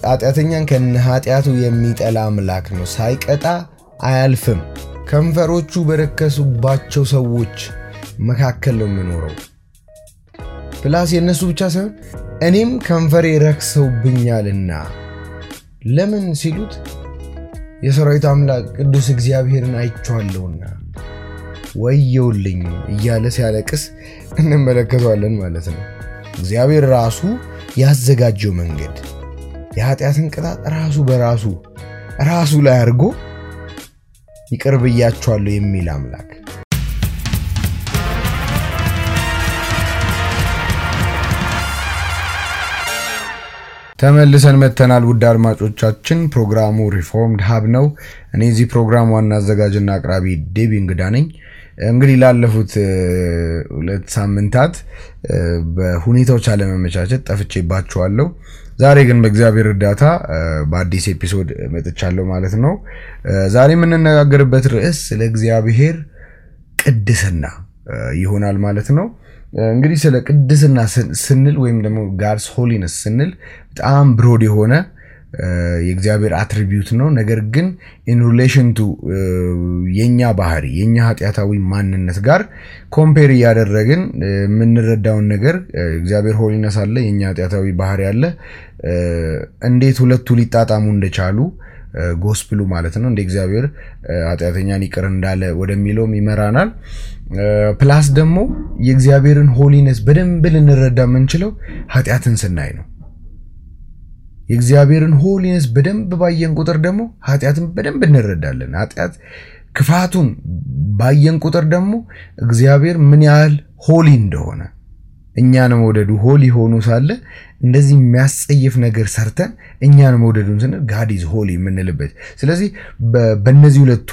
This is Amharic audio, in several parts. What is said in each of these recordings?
ኃጢአተኛን ከነኃጢአቱ የሚጠላ አምላክ ነው ሳይቀጣ አያልፍም ከንፈሮቹ በረከሱባቸው ሰዎች መካከል ነው የሚኖረው ፕላስ የነሱ ብቻ ሳይሆን እኔም ከንፈሬ ረክሰውብኛልና ለምን ሲሉት የሰራዊት አምላክ ቅዱስ እግዚአብሔርን አይቻለውና ወየውልኝ እያለ ሲያለቅስ እንመለከተዋለን ማለት ነው እግዚአብሔር ራሱ ያዘጋጀው መንገድ የኃጢአትን ቅጣት ራሱ ላይ አድርጎ ይቀርብያቸዋለሁ የሚል አምላክ ተመልሰን መተናል ውድ አድማጮቻችን ፕሮግራሙ ሪፎርምድ ሀብ ነው እኔ እዚህ ፕሮግራም ዋና አዘጋጅና አቅራቢ ዴቪ እንግዳ ነኝ እንግዲህ ላለፉት 2 ሳምንታት በሁኔታዎች አለመመቻቸት ጠፍቼባችኋለሁ ዛሬ ግን በእግዚአብሔር እርዳታ በአዲስ ኤፒሶድ መጥቻለሁ ማለት ነው ዛሬ የምንነጋገርበት ርዕስ ስለ እግዚአብሔር ቅድስና ይሆናል ማለት ነው እንግዲህ ስለ ቅድስና ስንል ወይም ደግሞ God's holiness ስንል በጣም ብሮድ የሆነ የእግዚአብሔር አትሪቢዩት ነው ነገር ግን in relation to የኛ ባህሪ የኛ ኃጢያታዊ ማንነት ጋር ኮምፔር ያደረግን ምንረዳውን ነገር እግዚአብሔር holiness አለ የኛ ኃጢያታዊ ባህሪ አለ እንዴት ሁለቱ ሊጣጣሙ እንደቻሉ ጎስፕሉ ማለት ነው እንደ እግዚአብሔር ኃጢያተኛን ይቅር እንዳለ ወደሚለው ይመራናል ፕላስ ደግሞ የእግዚአብሔርን holiness በደንብ ልንረዳ የምንችለው ኃጢያትን ስናይ ነው የእግዚአብሔርን holiness በደንብ ባየን ቁጥር ደግሞ ኃጢያትን በደንብ እንረዳለን ኃጢያት ክፋቱን ባየን ቁጥር ደግሞ እግዚአብሔር ምን ያህል ሆሊ እንደሆነ እኛን መውደዱ ሆሊ ሆኖ ሳለ እንደዚህ የሚያስጸይፍ ነገር ሰርተን እኛን መውደዱን ስንል God is holy የምንልበት ስለዚህ በእነዚህ ሁለቱ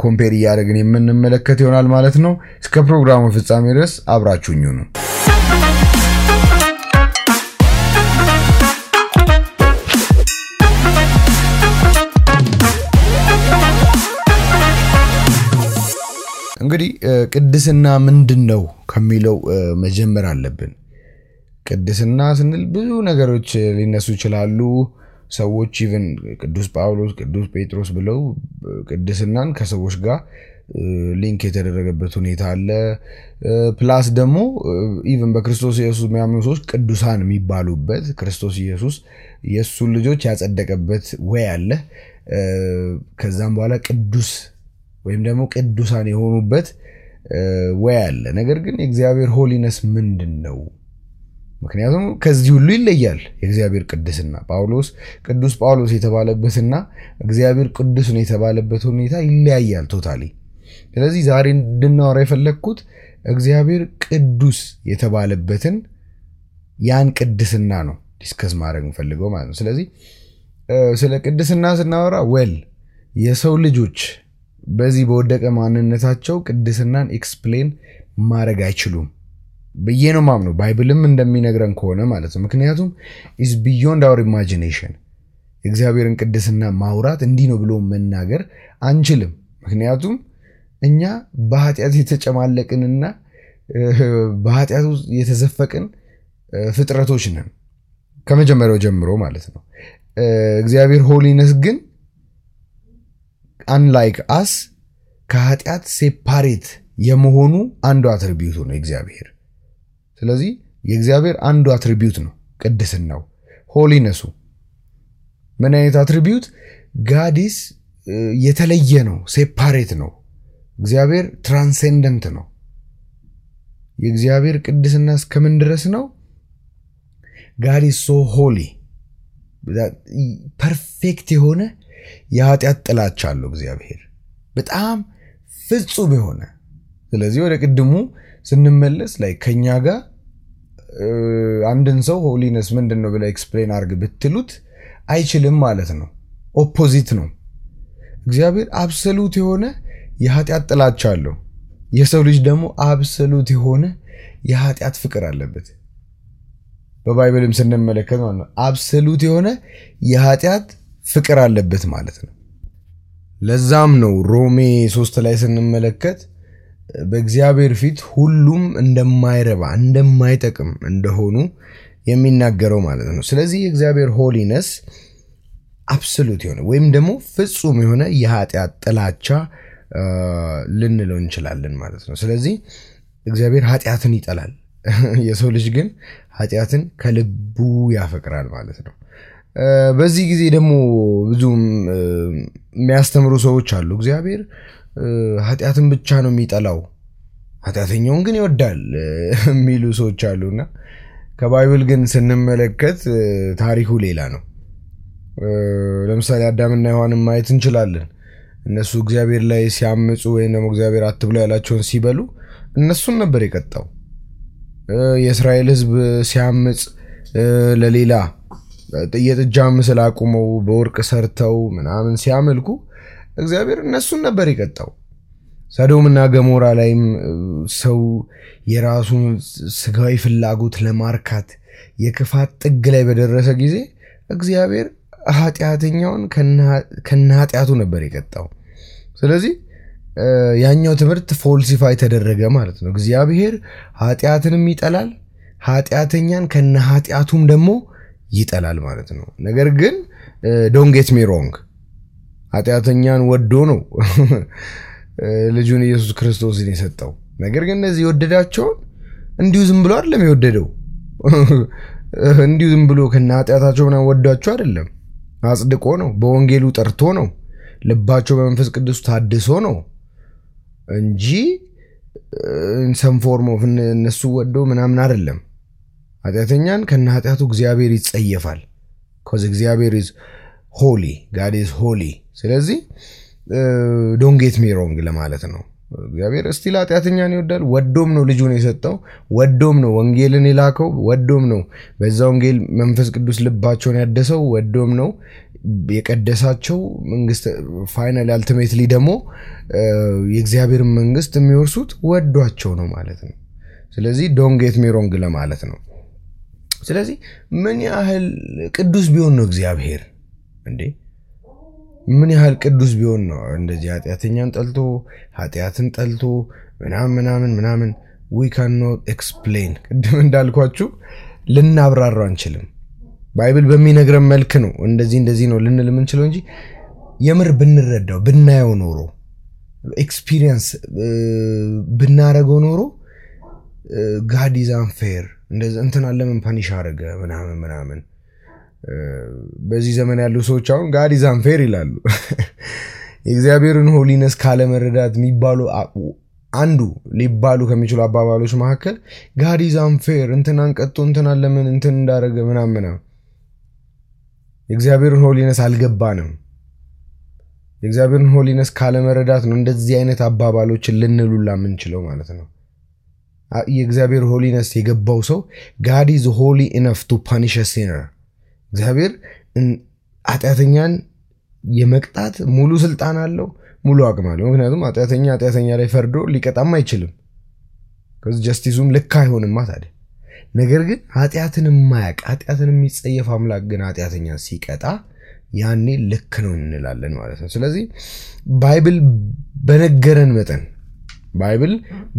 ኮምፔር ያደረግን የምንመለከት ይሆናል ማለት ነው እስከ ፕሮግራሙ ፍጻሜ ድረስ አብራችሁኝ ሁኑ እንግዲህ ቅድስና ምንድነው ከሚለው መጀመር አለብን ቅድስና ስንል ብዙ ነገሮች ሊነሱ ይችላሉ ሰዎች ኢቭን ቅዱስ ጳውሎስ ቅዱስ ጴጥሮስ ብለው ቅድስናን ከሰዎች ጋር ሊንክ የተደረገበት ሁኔታ አለ ፕላስ ደግሞ ኢቭን በክርስቶስ ኢየሱስ የሚያምኑ ሰዎች ቅዱሳን የሚባሉበት ክርስቶስ ኢየሱስ የሱ ልጆች ያጸደቀበት ወይ አለ ከዛም በኋላ ቅዱስ ወይም ደግሞ ቅዱሳን የሆኑበት ወይ አለ ነገር ግን የእግዚአብሔር holiness ምንድነው ምክንያቱም ከዚህ ሁሉ ይለያል የእግዚአብሔር ቅድስና ቅዱስ ጳውሎስ የተባለበትና እግዚአብሔር ቅዱስ ነው የተባለበት ሁኔታ ይለያያል ቶታሊ ስለዚህ ዛሬ እንድናወራ የፈለኩት እግዚአብሔር ቅዱስ የተባለበትን ያን ቅድስና ነው ዲስከስ ማድረግ ፈልገው ማለት ነው ስለዚህ ስለ ቅድስና ስናወራ የሰው ልጆች በዚህ በወደቀ ማንነታቸው ቅድስናን ኤክስፕሌን ማድረግ አይችሉም በየ ነው ማምነው ባይብልም እንደሚነግረን ከሆነ ማለት ነው ምክንያቱም is beyond our imagination እግዚአብሔርን ቅድስና ማውራት እንዲህ ነው ብሎ መናገር አንችልም ምክንያቱም እኛ በኃጢአት የተጨማለቅንና በኃጢአት ውስጥ የተዘፈቅን ፍጥረቶች ነን ከመጀመሪያው ጀምሮ ማለት ነው እግዚአብሔር holiness ግን unlike us ከኃጢአት ሴፓሬት የመሆኑ አንዱ አትሪቢዩት ነው እግዚአብሔር ስለዚህ የእግዚአብሔር አንዱ አትሪቢዩት ነው ቅድስናው holiness ምን አይነት አትሪቢዩት God is የተለየ ነው ሴፓሬት ነው እግዚአብሔር ትራንሰንደንት ነው የእግዚአብሔር ቅድስና እስከምን ድረስ ነው God is so holy ፐርፌክት የሆነ የኃጢአት ጥላቻ አለው እግዚአብሔር በጣም ፍጹም የሆነ ስለዚህ ወደ ቅድሙ ስንመለስ ከኛ ጋር አንድን ሰው holiness ምንድነው ብለ ኤክስፕሌን አድርግ ብትሉት አይችልም ማለት ነው ኦፖዚት ነው እግዚአብሔር አብሶሉት የሆነ የኃጢአት ጥላቻ አለው የሰው ልጅ ደግሞ አብሶሉት የሆነ የኃጢአት ፍቅር አለበት በባይብልም ስንመለከት ማለት ነው አብሶሉት የሆነ የኃጢአት ፍቅር አለበት ማለት ነው ለዛም ነው ሮሜ 3 ላይ ስንመለከት በእግዚአብሔር ፊት ሁሉም እንደማይረባ እንደማይጠቅም እንደሆኑ የሚናገረው ማለት ነው ስለዚህ የእግዚአብሔር holiness አብሶሉት የሆነ ወይም ደግሞ ፍጹም የሆነ የኃጢአት ጥላቻ ልንለው እንችላለን ማለት ነው። ስለዚህ እግዚአብሔር ኃጢአትን ይጠላል፣ የሰው ልጅ ግን ኃጢአትን ከልቡ ያፈቅራል ማለት ነው። በዚህ ጊዜ ደግሞ ብዙ የሚያስተምሩ ሰዎች አሉ። እግዚአብሔር ኃጢአትን ብቻ ነው የሚጠላው፣ ኃጢአተኛውን ግን ይወዳል የሚሉ ሰዎች አሉና ከባይብል ግን ስንመለከት ታሪኩ ሌላ ነው። ለምሳሌ አዳምና ሔዋንን ማየት እንችላለን። እነሱ እግዚአብሔር ላይ ሲያምፁ ወይም ደግሞ እግዚአብሔር አትብሉ ያላቸውን ሲበሉ እነሱን ነበር የቀጣው። የእስራኤል ሕዝብ ሲያምፅ ለሌላ የጥጃ ምስል አቁመው በወርቅ ሰርተው ምናምን ሲያመልኩ እግዚአብሔር እነሱን ነበር የቀጣው። ሰዶምና ገሞራ ላይም ሰው የራሱን ስጋዊ ፍላጎት ለማርካት የክፋት ጥግ ላይ በደረሰ ጊዜ እግዚአብሔር ኃጢአተኛውን ከነኃጢአቱ ነበር የቀጣው። ስለዚህ ያኛው ትምህርት ፎልሲፋይ ተደረገ ማለት ነው። እግዚአብሔር ኃጢአትንም ይጠላል፣ ኃጢአተኛን ከነኃጢአቱም ደግሞ ይጠላል ማለት ነው። ነገር ግን ዶንት ጌት ሚ ሮንግ፣ ኃጢአተኛን ወዶ ነው ልጁን ኢየሱስ ክርስቶስን የሰጠው። ነገር ግን እነዚህ የወደዳቸውን እንዲሁ ዝም ብሎ አይደለም የወደደው። እንዲሁ ዝም ብሎ ከነኃጢአታቸው ምናምን ወዳቸው አይደለም፣ አጽድቆ ነው፣ በወንጌሉ ጠርቶ ነው፣ ልባቸው በመንፈስ ቅዱስ ታድሶ ነው እንጂ ሰም ፎርም ኦፍ እነሱ ወዶ ምናምን አይደለም። ኃጢአተኛን ከነኃጢአቱ እግዚአብሔር ይጸየፋል። because እግዚአብሔር is holy, God is holy። ስለዚህ don't get me wrong ለማለት ነው። እግዚአብሔር እስቲል ኃጢአተኛን ይወዳል። ወዶም ነው ልጁን የሰጠው፣ ወዶም ነው ወንጌልን የላከው፣ ወዶም ነው በዛ ወንጌል መንፈስ ቅዱስ ልባቸውን ያደሰው፣ ወዶም ነው የቀደሳቸው። መንግስት ፋይናል አልቲሜትሊ ደግሞ የእግዚአብሔር መንግስት የሚወርሱት ወዷቸው ነው ማለት ነው። ስለዚህ don't get me wrong ለማለት ነው። ስለዚህ ምን ያህል ቅዱስ ቢሆን ነው እግዚአብሔር እንዴ? ምን ያህል ቅዱስ ቢሆን ነው እንደዚህ ኃጢአተኛን ጠልቶ ኃጢአትን ጠልቶ ምናምን we cannot explain። ቅድም እንዳልኳችሁ ልናብራራው አንችልም። ባይብል በሚነግረን መልክ ነው እንደዚህ ነው ልንል የምንችለው እንጂ የምር ብንረዳው ብናየው ኖሮ ኤክስፒሪየንስ ብናረገው ኖሮ God is unfair እንደዚህ እንትና ለምን ፓኒሽ አረገ ምናምን በዚህ ዘመን ያሉ ሰዎች አሁን God is unfair ይላሉ። የእግዚአብሔርን ሆሊነስ ካለ መረዳት የሚባሉ አንዱ ሊባሉ ከሚችሉ አባባሎች መካከል God is unfair እንትናን ቀጥቶ እንትና ለምን እንትን እንዳረገ ምናምን የእግዚአብሔርን ሆሊነስ አልገባንም። የእግዚአብሔርን ሆሊነስ ካለ መረዳት ነው እንደዚህ አይነት አባባሎችን ልንሉላ የምንችለው ማለት ነው። የእግዚአብሔር ሆሊነስ የገባው ሰው God is holy enough to punish a sinner። እግዚአብሔር ኃጢአተኛን የመቅጣት ሙሉ ስልጣን አለው፣ ሙሉ አቅም አለው። ምክንያቱም ኃጢአተኛ ላይ ፈርዶ ሊቀጣም አይችልም። ከዚህ ጀስቲሱም ልክ አይሆንም ታዲያ። ነገር ግን ኃጢአትን የማያውቅ ኃጢአትን የሚጸየፍ አምላክ ግን ኃጢአተኛን ሲቀጣ ያኔ ልክ ነው እንላለን ማለት ነው። ስለዚህ ባይብል በነገረን መጠን ባይብል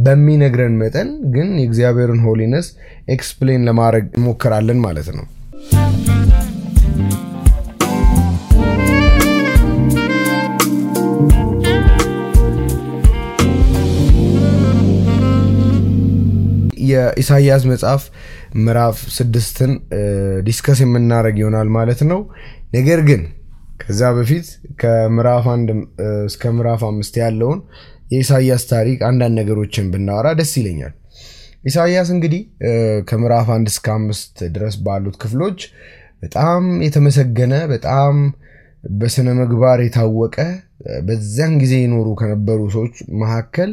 በሚነግረን መጠን ግን የእግዚአብሔርን ሆሊነስ ኤክስፕሌን ለማድረግ እንሞክራለን ማለት ነው። የኢሳይያስ መጽሐፍ ምዕራፍ 6ን ዲስከስ የምናደርግ ይሆናል ማለት ነው። ነገር ግን ከዛ በፊት ከምዕራፍ 1 እስከ ምዕራፍ 5 ያለውን የኢሳይያስ ታሪክ አንዳንድ ነገሮችን ብናወራ ደስ ይለኛል። ኢሳይያስ እንግዲህ ከምዕራፍ 1 እስከ 5 ድረስ ባሉት ክፍሎች በጣም የተመሰገነ በጣም በስነ ምግባር የታወቀ በዛን ጊዜ ይኖሩ ከነበሩ ሰዎች መካከል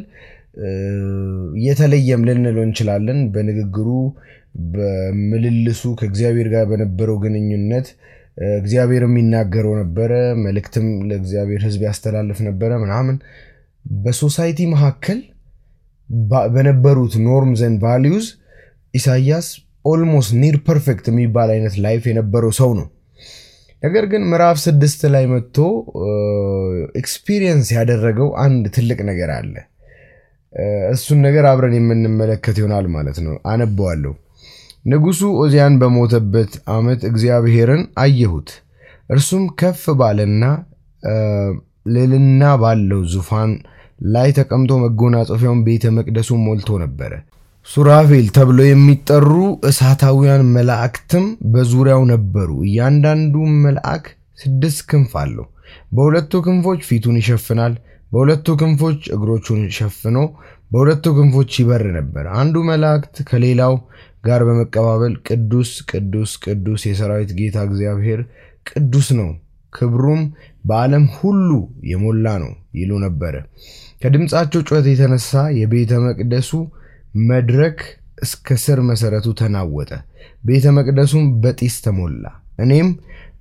የተለየም ልንለው እንችላለን። በንግግሩ በመልልሱ ከእግዚአብሔር ጋር በነበረው ግንኙነት እግዚአብሔር የሚናገረው ነበር፣ መልእክትም ለእግዚአብሔር ሕዝብ ያስተላልፍ ነበር ምናምን። በሶሳይቲ መካከል በነበሩት ኖርምስ ኤንድ ቫልዩስ ኢሳይያስ ኦልሞስት ኒር ፐርፌክት የሚባል አይነት ላይፍ የነበረው ሰው ነው። ነገር ግን ምዕራፍ 6 ላይ መጥቶ ኤክስፒሪየንስ ያደረገው አንድ ትልቅ ነገር አለ። እሱን ነገር አብረን የምንመለከት ይሆናል ማለት ነው። አነበዋለሁ። ንጉሱ ኦዚያን በሞተበት ዓመት እግዚአብሔርን አየሁት፣ እርሱም ከፍ ባለና ልዕልና ባለው ዙፋን ላይ ተቀምጦ መጎናጸፊያውን ቤተ መቅደሱን ሞልቶ ነበር። ሱራፌል ተብሎ የሚጠሩ እሳታውያን መላእክትም በዙሪያው ነበሩ። እያንዳንዱ መልአክ 6 ክንፍ አለው። በሁለቱ ክንፎች ፊቱን ይሸፍናል፣ በሁለቱ ክንፎች እግሮቹን ሸፍኖ በሁለቱ ክንፎች ይበር ነበር። አንዱ መላእክት ከሌላው ጋር በመቀባበል ቅዱስ ቅዱስ ቅዱስ የሰራዊት ጌታ እግዚአብሔር ቅዱስ ነው፣ ክብሩም በዓለም ሁሉ የሞላ ነው ይሉ ነበር። ከድምጻቸው ጩኸት የተነሳ የቤተ መቅደሱ መድረክ እስከ ስር መሰረቱ ተናወጠ፣ ቤተ መቅደሱም በጢስ ተሞላ። እኔም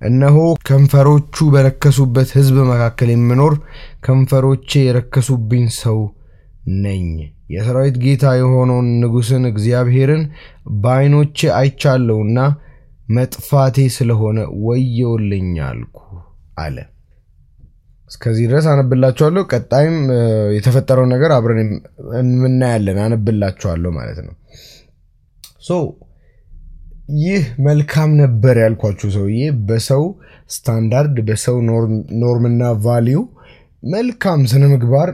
እነሆ ከንፈሮቹ በረከሱበት ሕዝብ መካከል የምኖር ከንፈሮቼ የረከሱብኝ ሰው ነኝ። የሰራዊት ጌታ የሆነውን ንጉሥን እግዚአብሔርን በዓይኖቼ አይቻለሁና መጥፋቴ ስለሆነ ወዮልኝ አልኩ አለ። እስከዚህ ድረስ አነብላችኋለሁ። ቀጣይም የተፈጠረው ነገር አብረን እናያለን። አነብላችኋለሁ ማለት ነው። ይህ መልካም ነበር ያልኳችሁ ሰውዬ በሰው ስታንዳርድ በሰው ኖርምና ቫልዩ መልካም ስነ ምግባር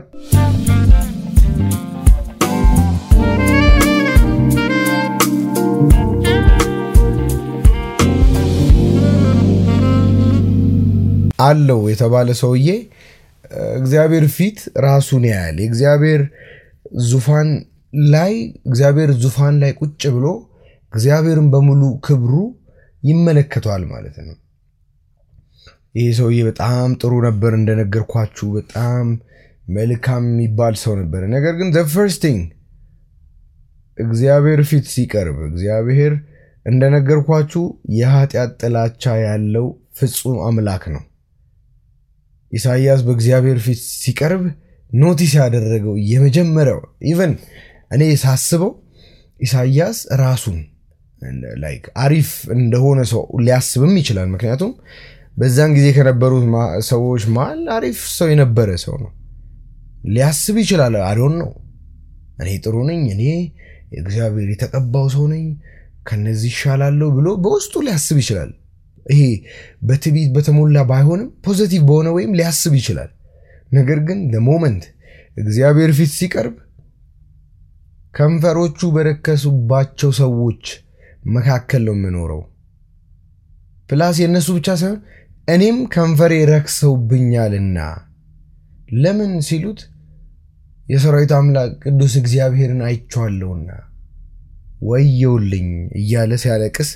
አለው የተባለ ሰውዬ እግዚአብሔር ፊት ራሱን ያያል። እግዚአብሔር ዙፋን ላይ ቁጭ ብሎ እግዚአብሔርን በሙሉ ክብሩ ይመለከቷል ማለት ነው። ይሄ ሰውዬ በጣም ጥሩ ነበር እንደነገርኳችሁ፣ በጣም መልካም የሚባል ሰው ነበር። ነገር ግን the first thing እግዚአብሔር ፊት ሲቀርብ እግዚአብሔር እንደነገርኳችሁ የኃጢአት ጥላቻ ያለው ፍጹም አምላክ ነው። ኢሳይያስ በእግዚአብሔር ፊት ሲቀርብ ኖቲስ ያደረገው የመጀመሪያው ኢቭን እኔ ሳስበው ኢሳይያስ ራሱን አሪፍ እንደሆነ ሰው ሊያስብም ይችላል። ምክንያቱም በዛን ጊዜ ከነበሩት ሰዎች መሃል አሪፍ ሰው የነበረ ሰው ነው ሊያስብ ይችላል። አዶን ነው እኔ ጥሩ ነኝ፣ እኔ እግዚአብሔር የተቀባው ሰው ነኝ፣ ከነዚህ ይሻላለሁ ብሎ በውስጡ ሊያስብ ይችላል። ይሄ በትዕቢት በተሞላ ባይሆንም ፖዚቲቭ በሆነ ወይም ሊያስብ ይችላል። ነገር ግን ለሞመንት እግዚአብሔር ፊት ሲቀርብ ከንፈሮቹ በረከሱባቸው ሰዎች መካከል ነው የምኖረው። ፕላስ የነሱ ብቻ ሳይሆን እኔም ከንፈሬ ረክሰውብኛልና ለምን ሲሉት የሰራዊት አምላክ ቅዱስ እግዚአብሔርን አይቻለሁና ወዮልኝ እያለ ሲያለቅስ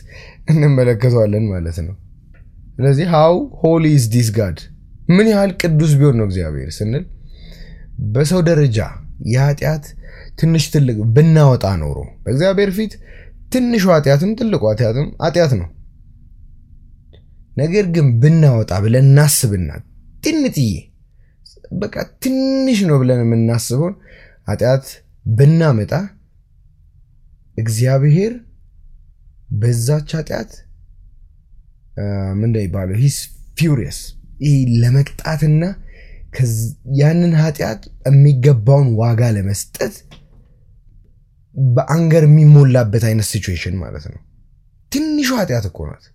እንመለከተዋለን ማለት ነው። ስለዚህ how holy is this God? ምን ያህል ቅዱስ ቢሆን ነው እግዚአብሔር ስንል በሰው ደረጃ የኃጢአት ትንሽ ትልቅ ብናወጣ ኖሮ በእግዚአብሔር ፊት ትንሹ ኃጢአትም ትልቁ ኃጢአትም ኃጢአት ነው። ነገር ግን ብናወጣ ብለን እናስብና ትንጥዬ በቃ ትንሽ ነው ብለን የምናስበው ኃጢአት ብናመጣ እግዚአብሔር በዛች ኃጢአት ምንድነው ይባለው he's furious ለመቅጣትና ያንን ኃጢአት የሚገባውን ዋጋ ለመስጠት በአንገር የሚሞላበት አይነት ሲቹዌሽን ማለት ነው። ትንሹ ኃጢአት እኮ ናት።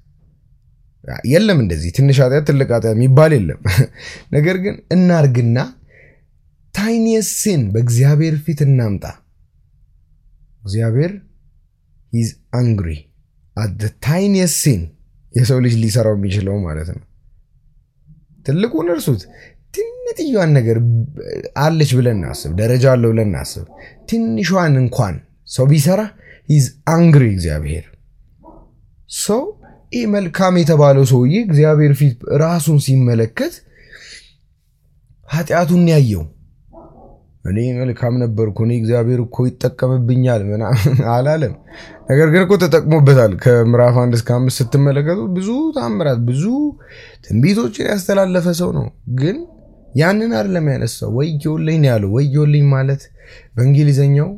የለም እንደዚህ ትንሽ ኃጢአት ትልቅ ኃጢአት የሚባል የለም። ነገር ግን እናርግና ታይኒየስት ሲን በእግዚአብሔር ፊት እናምጣ። እግዚአብሔር he's angry at the tiniest sin የሰው ልጅ ሊሰራው የሚችለው ማለት ነው። ትልቁን እርሱት ትንጥዬዋን ነገር አለች ብለን እናስብ፣ ደረጃ አለው ብለን እናስብ። ትንሿን እንኳን ሰው ቢሰራ he's angry እግዚአብሔር። ሰው መልካም የተባለው ሰውዬ እግዚአብሔር ፊት ራሱን ሲመለከት ኃጢአቱን ያየው እኔ መልካም ነበርኩ እኔ እግዚአብሔር እኮ ይጠቀምብኛል አላለም። ነገር ግን እኮ ተጠቅሞበታል። ከምዕራፍ 1 እስከ 5 ስትመለከቱ ብዙ ታምራት ብዙ ትንቢቶችን ያስተላለፈ ሰው ነው። ግን ያንን አይደለም ያነሳው። ወዮልኝ ያለው ወዮልኝ ማለት በእንግሊዘኛው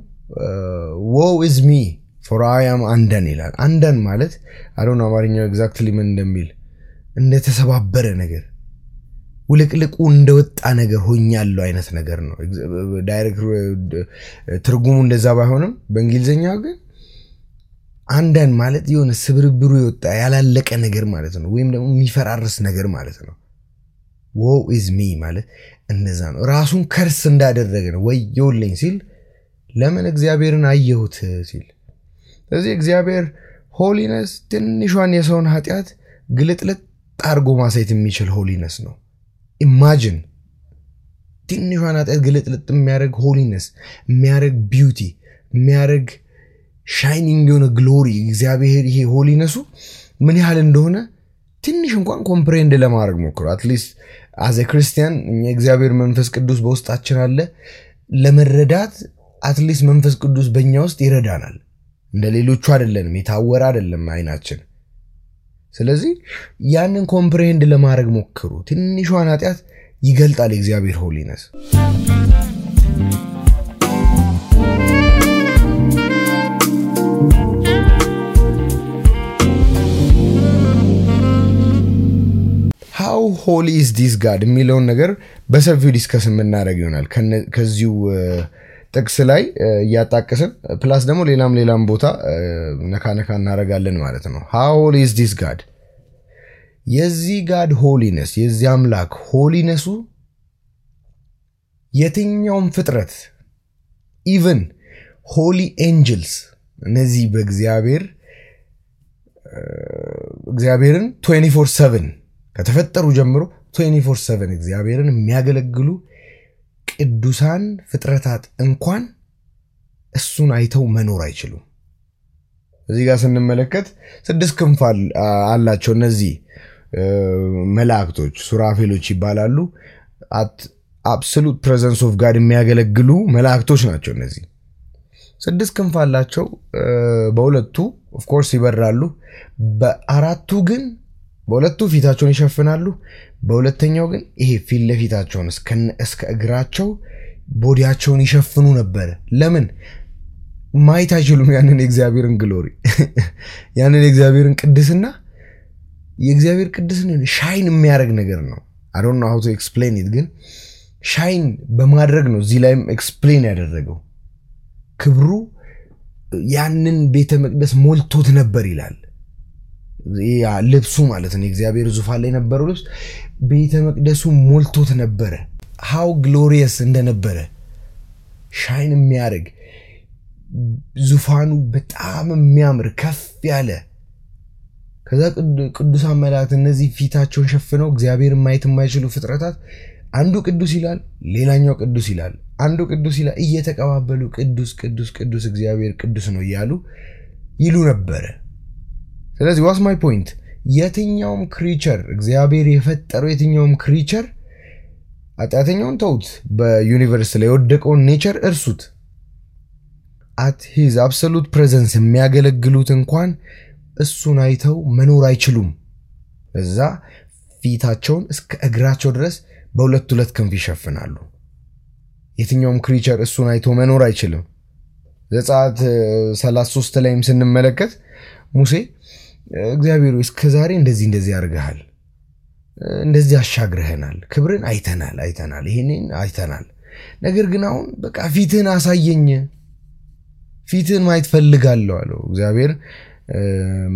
woe is me for I am undone ይላል። undone ማለት አሮን አማርኛው ኤግዛክትሊ ምን እንደሚል እንደተሰባበረ ነገር ውልቅልቁ እንደወጣ ነገር ሆኛለሁ አይነት ነገር ነው። ዳይሬክት ትርጉሙ እንደዛ ባይሆንም በእንግሊዘኛው ግን አንዳንድ ማለት የሆነ ስብርብሩ ይወጣ ያላለቀ ነገር ማለት ነው ወይም ደግሞ የሚፈራርስ ነገር ማለት ነው woe is me ማለት እንደዛ ነው ራሱን ከርስ እንዳደረገ ነው ወየውልኝ ሲል ለምን እግዚአብሔርን አየሁት ሲል ስለዚህ እግዚአብሔር ሆሊነስ ትንሿን የሰውን ኃጢአት ግልጥልጥ አርጎ ማሳየት የሚችል ሆሊነስ ነው ኢማጂን ትንሿን ኃጢአት ግልጥልጥ የሚያደርግ ሆሊነስ የሚያደርግ ቢዩቲ የሚያደርግ ሻይኒንግ የሆነ ግሎሪ እግዚአብሔር ይሄ ሆሊነሱ ምን ያህል እንደሆነ ትንሽ እንኳን ኮምፕሬንድ ለማድረግ ሞክሩ አትሊስት as a Christian እግዚአብሔር መንፈስ ቅዱስ በውስጣችን አለ ለመረዳት አትሊስት መንፈስ ቅዱስ በእኛ ውስጥ ይረዳናል እንደ ሌሎቹ አይደለንም የታወረ አይደለም አይናችን ስለዚህ ያንን ኮምፕሬንድ ለማድረግ ሞክሩ ትንሿን ኃጢአት ይገልጣል እግዚአብሔር ሆሊነስ how holy is this God የሚለውን ነገር በሰፊው ዲስከስ የምናደርግ ይሆናል ከዚሁ ጥቅስ ላይ ያጣቀሰን ፕላስ ደግሞ ሌላም ቦታ ነካነካ እናረጋለን ማለት ነው how holy is this God የዚህ God holiness የዚህ አምላክ ሆሊነሱ የትኛውም ፍጥረት even holy angels እነዚህ እግዚአብሔርን 24/7 ከተፈጠሩ ጀምሮ 24/7 እግዚአብሔርን የሚያገለግሉ ቅዱሳን ፍጥረታት እንኳን እሱን አይተው መኖር አይችሉም እዚህ ጋር ስንመለከት 6 ክንፍ አላቸው እነዚህ መላእክቶች ሱራፌሎች ይባላሉ at absolute presence of God የሚያገለግሉ መላእክቶች ናቸው እነዚህ 6 ክንፍ አላቸው በሁለቱ of course ይበራሉ በአራቱ ግን በሁለቱ ፊታቸውን ይሸፍናሉ በሁለተኛው ግን ይሄ ፊት ለፊታቸውን እስከ እግራቸው ቦዲያቸውን ይሸፍኑ ነበር ለምን ማየት አይችሉም ያንን የእግዚአብሔርን ግሎሪ ያንን የእግዚአብሔርን ቅድስና የእግዚአብሔር ቅድስና ሻይን የሚያደርግ ነገር ነው I don't know how to explain it ግን ሻይን በማድረግ ነው እዚህ ላይም ኤክስፕሌን ያደረገው ክብሩ ያንን ቤተ መቅደስ ሞልቶት ነበር ይላል ያ ልብሱ ማለት ነው እግዚአብሔር ዙፋን ላይ ነበረው ልብስ ቤተ መቅደሱ ሞልቶት ነበር how glorious እንደነበረ ሻይን የሚያደርግ ዙፋኑ በጣም የሚያምር ከፍ ያለ ከዛ ቅዱሳን መላእክት እነዚህ ፊታቸውን ሸፍነው እግዚአብሔርን ማየት የማይችሉ ፍጥረታት አንዱ ቅዱስ ይላል ሌላኛው ቅዱስ ይላል አንዱ ቅዱስ ይላል እየተቀባበሉ ቅዱስ ቅዱስ ቅዱስ እግዚአብሔር ቅዱስ ነው ይያሉ ይሉ ነበር ስለዚህ what's my point የትኛውም ክሪቸር እግዚአብሔር የፈጠረው የትኛውም ክሪቸር አጣተኛውን ተውት በዩኒቨርስ ላይ ወደቀው ኔቸር እርሱት at his absolute presence የሚያገለግሉት እንኳን እሱን አይተው መኖር አይችሉም እዛ ፊታቸውን እስከ እግራቸው ድረስ በሁለት ክንፍ ይሸፍናሉ የትኛውም ክሪቸር እሱን አይቶ መኖር አይችልም ዘጸአት 33 ላይም ስንመለከት ሙሴ እግዚአብሔር እስከዛሬ እንደዚህ ያርጋል እንደዚህ አሻግረህናል ክብርን አይተናል ይሄንን አይተናል ነገር ግን አሁን በቃ ፊትህን አሳየኝ ፊትህን ማየት ፈልጋለሁ አለው እግዚአብሔር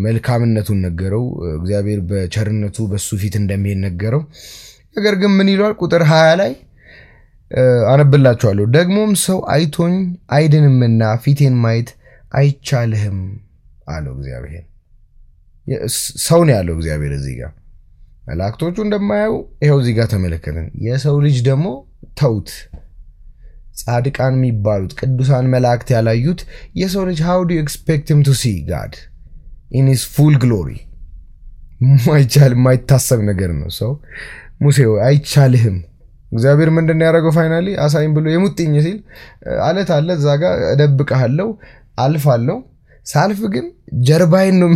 መልካምነቱን ነገረው እግዚአብሔር በቸርነቱ በሱ ፊት እንደሚሄድ ነገረው ነገር ግን ምን ይላል ቁጥር 20 ላይ አነብላችኋለሁ ደግሞም ሰው አይቶኝ አይድንምና ፊቴን ማየት አይቻልህም አለው እግዚአብሔር ሰው ነው ያለው እግዚአብሔር እዚህ ጋር መላእክቶቹ እንደማያዩ ይሄው እዚህ ጋር ተመለከተን የሰው ልጅ ደግሞ ተውት ጻድቃን የሚባሉት ቅዱሳን መላእክት ያላዩት የሰው ልጅ how do you expect him to see God in his full glory ማይታሰብ ነገር ነው ሰው ሙሴ አይቻልህም እግዚአብሔር ምንድነው ያደረገው ፋይናሊ አሳይም ብሎ የሙጥኝ ሲል አለት አለ እዛ ጋር እደብቀሃለሁ አልፋለሁ ሳልፍ ግን ጀርባዬን ነው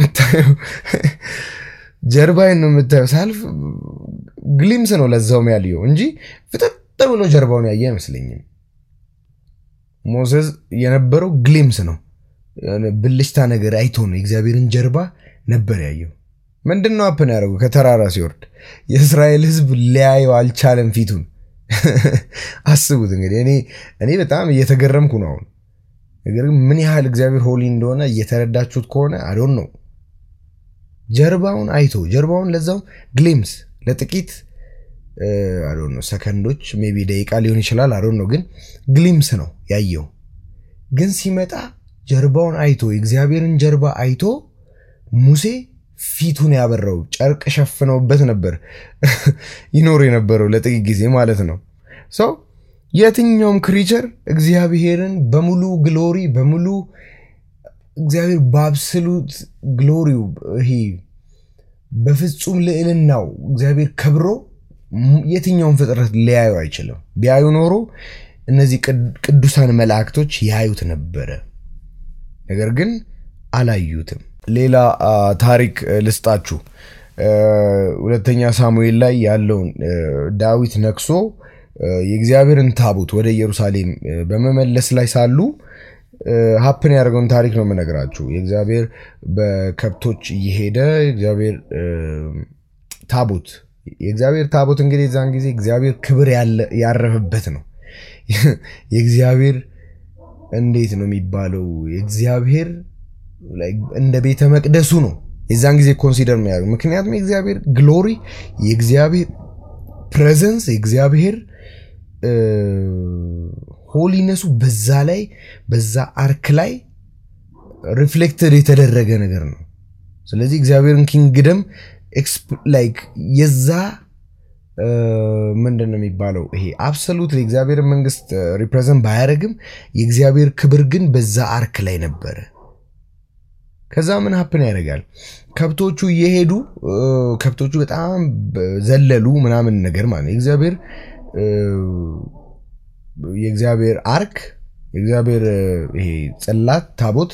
የምታየው ሳልፍ ግሊምስ ነው ለዛው ያለው እንጂ ፍጥጥ ብሎ ጀርባውን ያየ አይመስልኝም ሞሴስ የነበረው ግሊምስ ነው ብልሽታ ነገር አይቶ ነው እግዚአብሔርን ጀርባ ነበር ያየው ምንድነው አፕን ያደረገው ከተራራ ሲወርድ የእስራኤል ህዝብ ሊያየው አልቻለም ፊቱን አስቡት እንግዲህ እኔ በጣም እየተገረምኩ ነው ነገር ግን ምን ያህል እግዚአብሔር ሆሊ እንደሆነ እየተረዳችሁት ከሆነ I don't know ጀርባውን አይቶ ጀርባውን ለዛው ግሊምስ ለጥቂት I don't know ሰከንዶች maybe ደቂቃ ሊሆን ይችላል I don't know ግን ግሊምስ ነው ያየው ግን ሲመጣ ጀርባውን አይቶ የእግዚአብሔርን ጀርባ አይቶ ሙሴ ፊቱን ያበራው ጨርቅ ሸፍነውበት ነበር ይኖር የነበረው ለጥቂት ጊዜ ማለት ነው so የትኛውም ክሪቸር እግዚአብሔርን በሙሉ ግሎሪ በሙሉ እግዚአብሔር በአብሶሉት ግሎሪው ይሄ በፍጹም ልዕልናው እግዚአብሔር ከብሮ የትኛውም ፍጥረት ሊያዩ አይችልም ቢያዩ ኖሮ እነዚህ ቅዱሳን መላእክቶች ያዩት ነበር ነገር ግን አላዩትም ሌላ ታሪክ ልስጣችሁ ሁለተኛ ሳሙኤል ላይ ያለውን ዳዊት ነክሶ የእግዚአብሔርን ታቦት ወደ ኢየሩሳሌም በመመለስ ላይ ሳሉ happen ያደርገውን ታሪክ ነው መነግራችሁ የእግዚአብሔር በከብቶች እየሄደ እግዚአብሔር ታቦት እንግዲህ ዛን ጊዜ እግዚአብሔር ክብር ያረፈበት ነው የእግዚአብሔር እንዴት ነው የሚባለው የእግዚአብሔር እንደ ቤተ መቅደሱ ነው የዛን ጊዜ ኮንሲደር የሚያደርግ ምክንያቱም የእግዚአብሔር ግሎሪ የእግዚአብሔር ፕሬዘንስ የእግዚአብሔር ሆሊነሱ በዛ አርክ ላይ ሪፍሌክትድ የተደረገ ነገር ነው ስለዚህ እግዚአብሔርን ኪንግደም ላይክ የዛ ምንድነው የሚባለው ይሄ አብሶሉት የእግዚአብሔር መንግስት ሪፕሬዘንት ባያረግም የእግዚአብሔር ክብር ግን በዛ አርክ ላይ ነበር ከዛ ምን happen ያደርጋል ከብቶቹ እየሄዱ ከብቶቹ በጣም ዘለሉ ምናምን ነገር ማለት የእግዚአብሔር አርክ የእግዚአብሔር ይሄ ጽላት ታቦት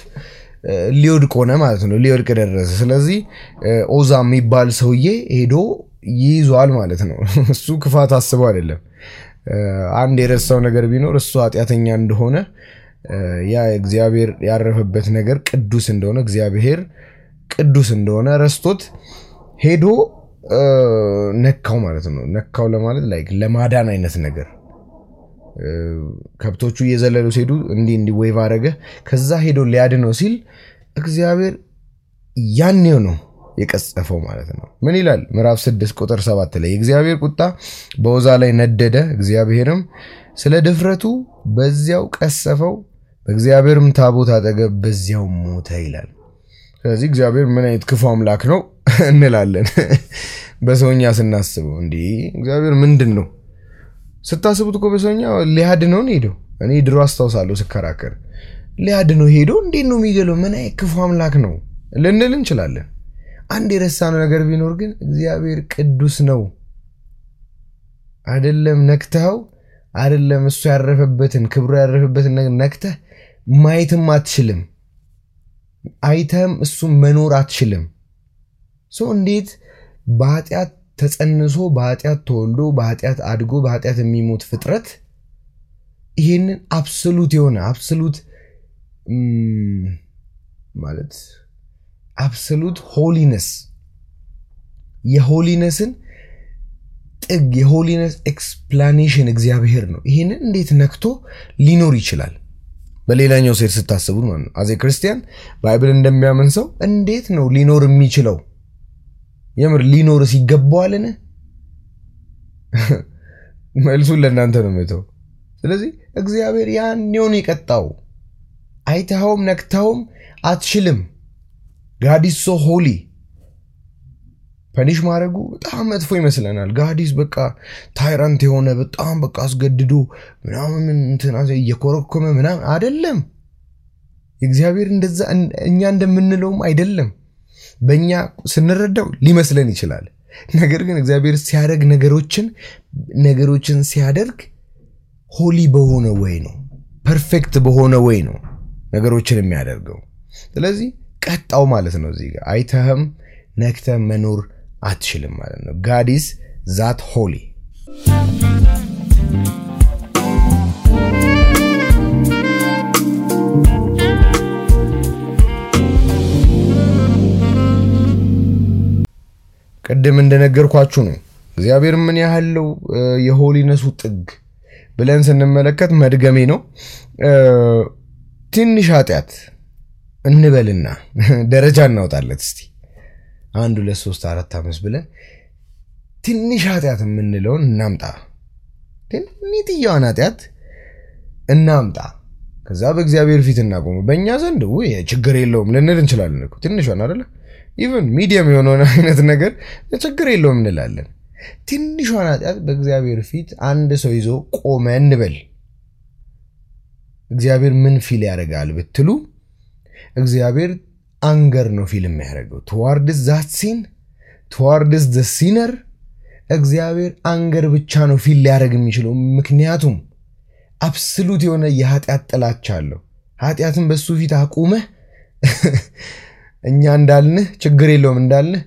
ሊወድቅ ሆነ ማለት ነው ሊወድቅ ደረሰ ስለዚህ ኦዛ የሚባል ሰውዬ ሄዶ ይይዟል ማለት ነው እሱ ክፋት አስበው አይደለም አንድ የረሳው ነገር ቢኖር እሱ ኃጢያተኛ እንደሆነ ያ እግዚአብሔር ያረፈበት ነገር ቅዱስ እንደሆነ እግዚአብሔር ቅዱስ እንደሆነ ረስቶት ሄዶ ነካው ማለት ነው ነካው ለማለት ላይክ ለማዳን አይነት ነገር ከብቶቹ እየዘለሉ ሲሄዱ እንዲ ዌቭ አረገ ከዛ ሄዶ ሊያድነው ሲል እግዚአብሔር ያኔው ነው የቀጸፈው ማለት ነው ምን ይላል ምዕራፍ 6 ቁጥር 7 ላይ እግዚአብሔር ቁጣ በኦዛ ላይ ነደደ እግዚአብሔርም ስለ ድፍረቱ በዚያው ቀሰፈው በእግዚአብሔርም ታቦት አጠገብ በዚያው ሞተ ይላል ስለዚህ እግዚአብሔር ምን አይነት ክፉ አምላክ ነው እንላለን በሰውኛ ስናስበው እንዴ እግዚአብሔር ምንድነው ስታስቡት እኮ በሰውኛ ሊያድነው ሄዶ እኔ ድሮ አስተዋሳለሁ ስከራከር ሊያድነው ሄዶ እንዴት ነው የሚገለው ምን አይነት ክፉ አምላክ ነው ልንል እንችላለን አንድ የረሳነው ነገር ቢኖር ግን እግዚአብሔር ቅዱስ ነው አይደለም ነክተው አይደለም እሱ ያረፈበትን ክብሩ ያረፈበትን ነገር ነክተህ ማየትም አትችልም አይተም እሱ መኖር አትችልም እንዴት በኃጢያት ተጸንሶ በኃጢያት ተወልዶ በኃጢያት አድጎ በኃጢያት የሚሞት ፍጥረት ይሄንን አብሶሉት የሆነ አብሶሉት ማለት አብሶሉት ሆሊነስ የሆሊነስን ጥግ የሆሊነስ ኤክስፕላኔሽን እግዚአብሔር ነው ይሄንን እንዴት ነክቶ ሊኖር ይችላል በሌላኛው ሴት ስታስቡት ማለት ነው አዜ ክርስቲያን ባይብል እንደሚያምን ሰው እንዴት ነው ሊኖር የሚችለው የምር ሊኖር ሲገባዋልን መልሱን ለእናንተ ነው መተው ስለዚህ እግዚአብሔር ያኔውን ይቀጣው አይተኸውም ነክተውም አትችልም God is so holy ፐኒሽ ማድረጉ በጣም መጥፎ ይመስለናል God is በቃ ታይራንት የሆነ በጣም በቃ አስገድዶ ምናምን እንትና እየኮረኮመ ምናምን አይደለም እግዚአብሔር እንደዛ እኛ እንደምንለውም አይደለም በእኛ ስንረዳው ሊመስለን ይችላል ነገር ግን እግዚአብሔር ሲያደርግ ነገሮችን ሲያደርግ ሆሊ በሆነ ወይ ነው ፐርፌክት በሆነ ወይ ነው ነገሮችን የሚያደርገው ስለዚህ ቀጣው ማለት ነው እዚህ ጋር አይተህም ነክተህ መኖር አትችልም ማለት ነው God is that holy ቀደም እንደነገርኳችሁ ነው እግዚአብሔር ምን ያህለው የሆሊነሱ ጥግ ብለን ስንመለከት መድገሜ ነው ትንሽ ኃጢአት እንበልና ደረጃ እናውጣለት እስቲ 1 2 3 4 5 ብለን ትንሽ ኃጢአት የምንለውን እናምጣ ትንሽዬዋን ኃጢአት እናምጣ ከዛ በእግዚአብሔር ፊት እናቆም በእኛ ዘንድ ወይ ችግር የለውም ልንል እንችላለን እኮ ትንሿን አይደለ ኢቭን ሚዲየም የሆነውን አይነት ነገር ችግር የለውም እንላለን ትንሿን ኃጢአት በእግዚአብሔር ፊት አንድ ሰው ይዞ ቆመ እንበል እግዚአብሔር ምን ፊል ያደርጋል ብትሉ እግዚአብሔር አንገር ነው ፊል የሚያደርገው towards that sin towards the sinner እግዚአብሔር አንገር ብቻ ነው ፊል ሊያደርግ የሚችለው ምክንያቱም አብሶሉት የሆነ የኃጢአት ጥላቻ አለው ኃጢአትን በሱ ፊት አቁመ እኛ እንዳልን ችግር የለውም እንዳልን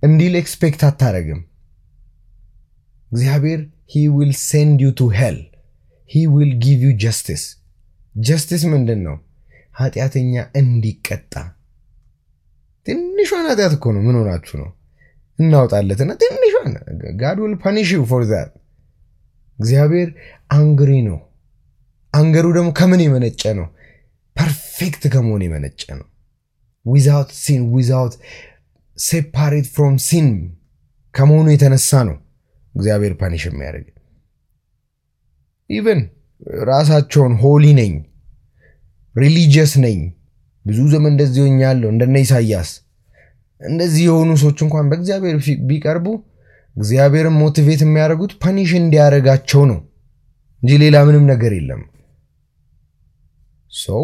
እንዲል ኤክስፔክት አታረግም እግዚአብሔር he will send you to hell he will give you justice ምንድነው ኃጢአተኛ እንዲቀጣ ትንሿን ኃጢአት እኮ ነው ምን ሆናችሁ ነው እናውጣለትና ትንሿን God will punish you for that እግዚአብሔር አንግሪ ነው አንገሩ ደግሞ ከምን የመነጨ ነው ፐርፌክት ከመሆን የመነጨ ነው without sin without separate from sin ከመሆኑ የተነሳ ነው እግዚአብሔር ፓኒሽ የሚያደርግ even ራሳቸውን ሆሊ ነኝ ሪሊጂየስ ነኝ ብዙ ዘመን እንደዚህ ሆኛለሁ እንደነ ኢሳይያስ እንደዚህ የሆኑ ሰዎች እንኳን በእግዚአብሔር ቢቀርቡ እግዚአብሔርን ሞቲቬት የሚያደርጉት ፓኒሽ እንዲያረጋቸው ነው እንጂ ሌላ ምንም ነገር የለም so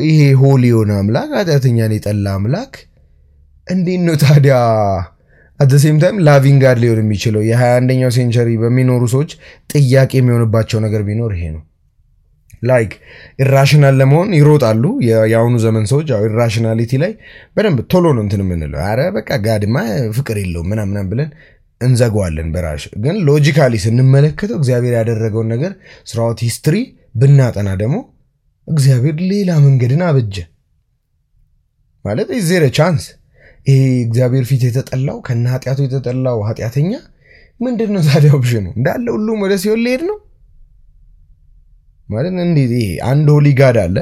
ይሄ ሆሊ የሆነ አምላክ ኃጢአተኛን የጠላ አምላክ እንዴት ነው ታዲያ at the same time loving God ሊሆን የሚችለው የ21ኛው ሴንቸሪ በሚኖሩ ሰዎች ጥያቄ የሚሆንባቸው ነገር ቢኖር ይሄ ነው like irrational ለመሆን ይሮጣሉ ያውኑ ዘመን ሰዎች ያው irrationality ላይ በደንብ ቶሎ ነው እንትን ምንለው አረ በቃ ጋድማ ፍቅር የለውም ምናምን ብለን እንዘጋዋለን በራሽ ግን ሎጂካሊ ስንመለከተው እግዚአብሔር ያደረገው ነገር throughout history ብናጠና ደግሞ እግዚአብሔር ሌላ መንገድን አበጀ ማለት is there a chance እግዚአብሔር ፊት የተጠላው ከናጢያቱ የተጠላው ኃጢአተኛ ምንድነው ታዲያ ኦፕሽኑ እንዳለ ሁሉም ወደ ሲኦል ሊሄድ ነው ማለት እንዴ አንድ ሆሊ ጋድ አለ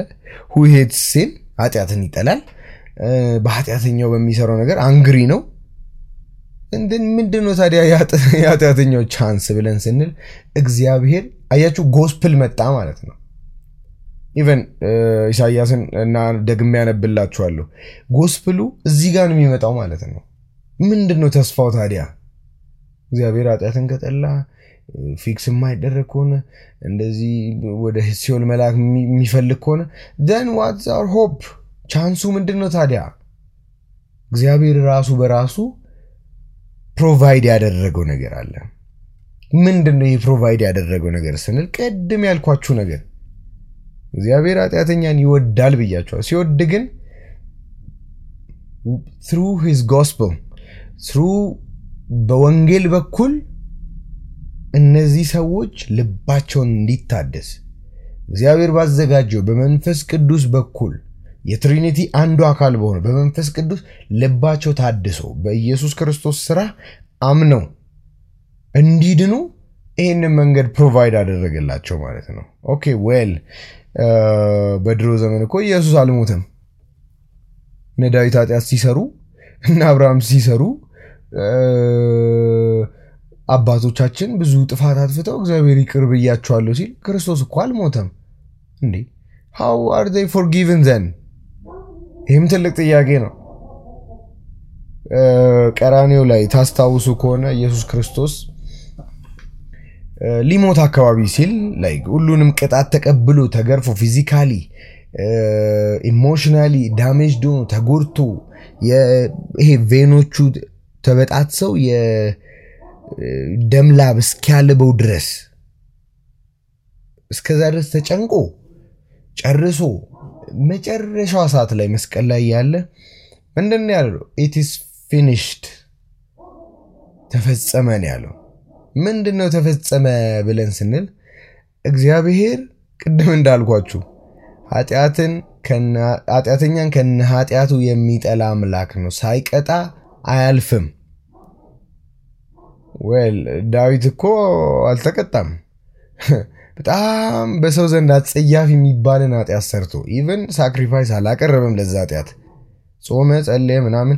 who hates sin ኃጢአትን ይጠላል በኃጢአተኛው በሚሰራው ነገር አንግሪ ነው እንደን ምንድነው ታዲያ የኃጢአተኛው ቻንስ ብለን ስንል እግዚአብሔር አያችሁ ጎስፕል መጣ ማለት ነው even ኢሳይያስን እና ደግሜ ያነብላችኋለሁ ጎስፕሉ እዚህ ጋር ነው የሚመጣው ማለት ነው ምንድነው ተስፋው ታዲያ እግዚአብሔር ኃጢአትን ከጠላ ፊክስ የማይደረግ ከሆነ እንደዚህ ወደ ሲኦል መላክ የሚፈልግ ከሆነ then what's our hope ቻንሱ ምንድነው ታዲያ እግዚአብሔር ራሱ በራሱ ፕሮቫይድ ያደረገው ነገር አለ ምንድነው ይሄ ፕሮቫይድ ያደረገው ነገር ስንል ቀድም ያልኳችሁ ነገር እግዚአብሔር ኃጢአተኛን ይወዳል ብያችኋል ሲወድ ግን through his gospel through በወንጌል በኩል እነዚህ ሰዎች ልባቸውን እንዲታደስ እግዚአብሔር ባዘጋጀው በመንፈስ ቅዱስ በኩል የትሪኒቲ አንዱ አካል በሆነ በመንፈስ ቅዱስ ልባቸው ታድሶ በኢየሱስ ክርስቶስ ሥራ አምነው እንዲድኑ ይሄንን መንገድ ፕሮቫይድ አደረገላቸው ማለት ነው ኦኬ ዌል በድሮ ዘመን እኮ ኢየሱስ አልሞተም ነዳዊት ኃጢአት ሲሰሩ እና አብርሃም ሲሰሩ አባቶቻችን ብዙ ጥፋት አጥፍተው እግዚአብሔር ይቅር ብያቸዋለሁ ሲል ክርስቶስ እኮ አልሞተም እንዴ how are they forgiven then ይህም ትልቅ ጥያቄ ነው ቀራንዮ ላይ ታስታውሱ ከሆነ ኢየሱስ ክርስቶስ ሊሞት አካባቢ ሲል like ሁሉንም ቅጣት ተቀብሎ ተገርፎ ፊዚካሊ ኢሞሽናሊ ዳሜጅድ ሆኖ ተጎድቶ ይሄ ቬኖቹ ተበጣጥሰው የደም ላብ እስኪያልበው ድረስ እስከዛ ድረስ ተጨንቆ ጨርሶ መጨረሻው ሰዓት ላይ መስቀል ላይ ያለ ምንድነው ያለው it is finished ተፈጸመ ነው ያለው ምንድነው ተፈጸመ ብለን ስንል እግዚአብሔር ቅድም እንዳልኳችሁ ኃጢአተኛን ከኃጢአቱ የሚጠላ አምላክ ነው ሳይቀጣ አያልፍም well ዳዊት እኮ አልተቀጣም በጣም በሰው ዘንድ አጸያፊ የሚባልን ኃጢአት ሰርቶ ኢቭን ሳክሪፋይስ አላቀረበም ለዛ ኃጢአት ጾመ ጸለየ ምናምን